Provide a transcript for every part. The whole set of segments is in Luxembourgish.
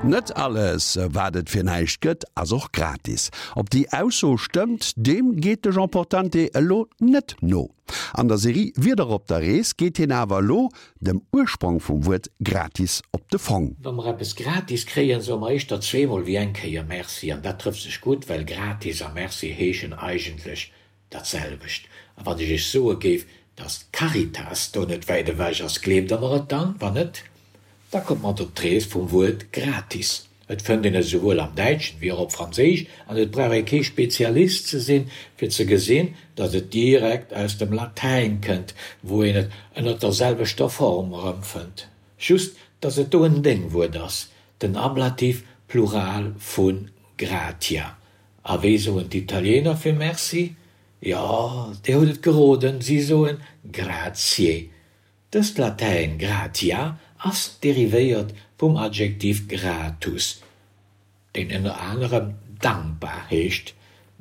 Net alles, wat et fir näischt gëtt, ass och gratis. Ob déi Ausso stëmmt, deem geet de Jean Portante elo net no. An der Serie Wieder op der Rees geet hien awer elo dem Ursprong vum Wuert gratis op de Fong. Wa mer eppes gratis kréien, soe mer éischter zweemol wéi eng Kéier Merci. An dat trëfft sech gutt, well gratis a Merci heeschen eigentlech Dat selwecht. A wann ech Iech soe géif, dass d'Caritas do net wäit ewech ass, gleeft Der mer et dann? Wann net, da kommt mat op d'Rees vum Wuert gratis. Et fënnt een et esouwuel am Däitschen wéi och op Franséisch an et brauch ee kee Spezialist ze sinn, fir ze gesinn, dass et direkt aus dem Latäin kënnt, wou een et ënner der selwechter Form erëmfënnt. Just, dass et do en Déngwuert ass, den Ablativ Plural vu gratia. A wéi soen d'Italiener fir Merci? Jo, Dir hutt et geroden, si soen Grazie. Dëst Latäin gratia ass derivéiert vum Adjektiv gratus, deen ënner anerem dankbar heescht.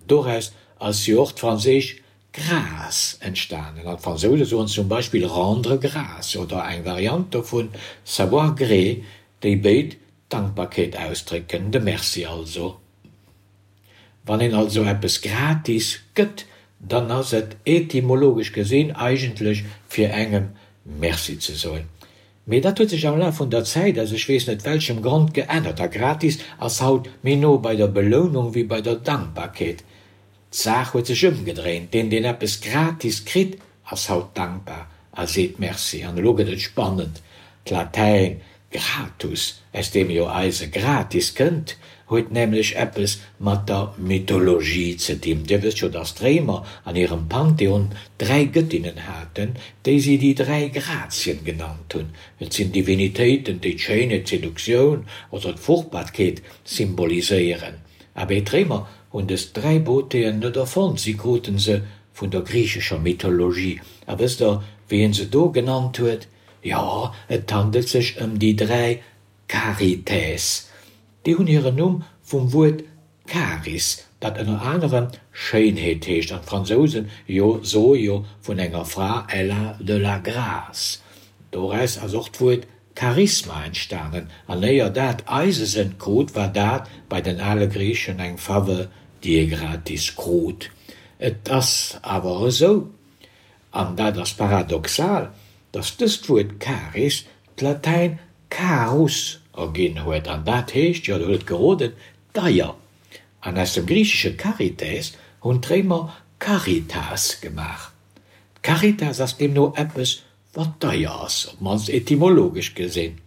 Doraus ass jo och d'franséisch grâce entstanen, an d'Fransouse soen zum Beispill rendre grâce oder eng Variant dovun savoir gré, déi béid Dankbarkeet ausdrécken, de Merci also. Wann een also eppes gratis gëtt, dann ass et etymologesch gesinn eigentlech fir engem Merci ze soen. Mee dat huet sech am Laf vun der Zäit aus ech weess net welchem Grond geännert a gratis ass haut méi no bei der Belounung wéi bei der Dankbarkeet. D'Saach huet sech ëmgedréint, deen deen eppes gratis kritt, ass haut dankbar a seet Merci. An elo gëtt et spannend, D'Latäin gratus, aus deem jo eise gratis kënnt, huet nämlech eppes mat der Mythologie ze dinn. Dir wësst jo, dass d'Réimer an hirem Pantheon 3 Gëttinnen haten, déi si déi 3 Grazien genannt hunn. Et sinn Divinitéiten, déi d'Schéinheet, d'Seduktioun oder d'Fruchtbarkeet symboliséieren. Abee, d'Réimer hunn dës 3 Beautéen net erfonnt, si kruten se vun der griichescher Mythologie. A wësst der, wéi een se do genannt huet? Jo, et handelt sech ëm déi 3 Charites. Déi hunn hiren Numm vum Wuert Charis, dat ënner anerem Schéinheet heescht, an d'Fransousen jo soe jo vun enger Fra elle a de la grâce. Doraus ass och d'Wuert Charisma entstanen, an éier dat eise Sënn krut, war dat bei den ale Griichen eng Faveur, déi ee gratis krut. Et ass awer esou, an dat ass paradoxal, datt dëst Wuert Charis d'Latäin carus erginn huet, an dat heescht, jo, der hutt et geroden, deier. An aus dem griichesche charites hunn d'Réimer caritas gemaach. D'Caritas ass deemno eppes, wat deier ass, op d'mannst etymologesch gesinn.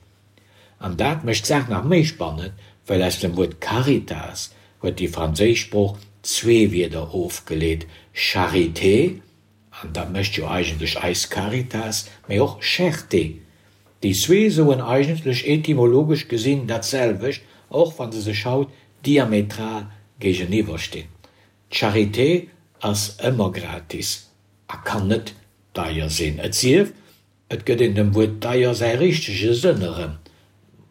An dat mécht d'Saach nach méi spannend, well aus dem Wuert caritas huet déi franséisch Sprooch zwee Wierder ofgeleet, charité, an dat mécht jo eigentlech eis Caritas, mee och cherté. Déi zwee soen eigentlech etymologesch gesinn dat selwecht, och wa se sech haut diametral géigeniwwer stinn. D'Charité ass ëmmer gratis a kann net deier sinn, et sief, et gëtt een dem Wuert deier säi richtege Sënn erëm.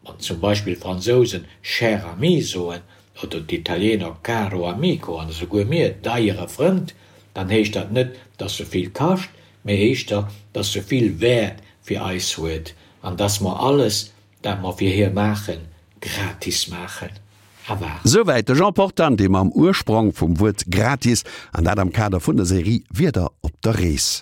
Wann zum Beispill d'Fransousen cher ami soen oder d'Italiener caro amico an esouguer mir deiere Frënd, dann heescht dat net, dass se vill kascht, mee éischter, dass se vill Wäert fir eis huet an dass mer alles, dat mer fir hie maachen, gratis maachen. A war. Souwäit de Jean Portante mam Ursprong vum Wuert gratis, an dat am Kader vun der Serie Wieder op der Rees.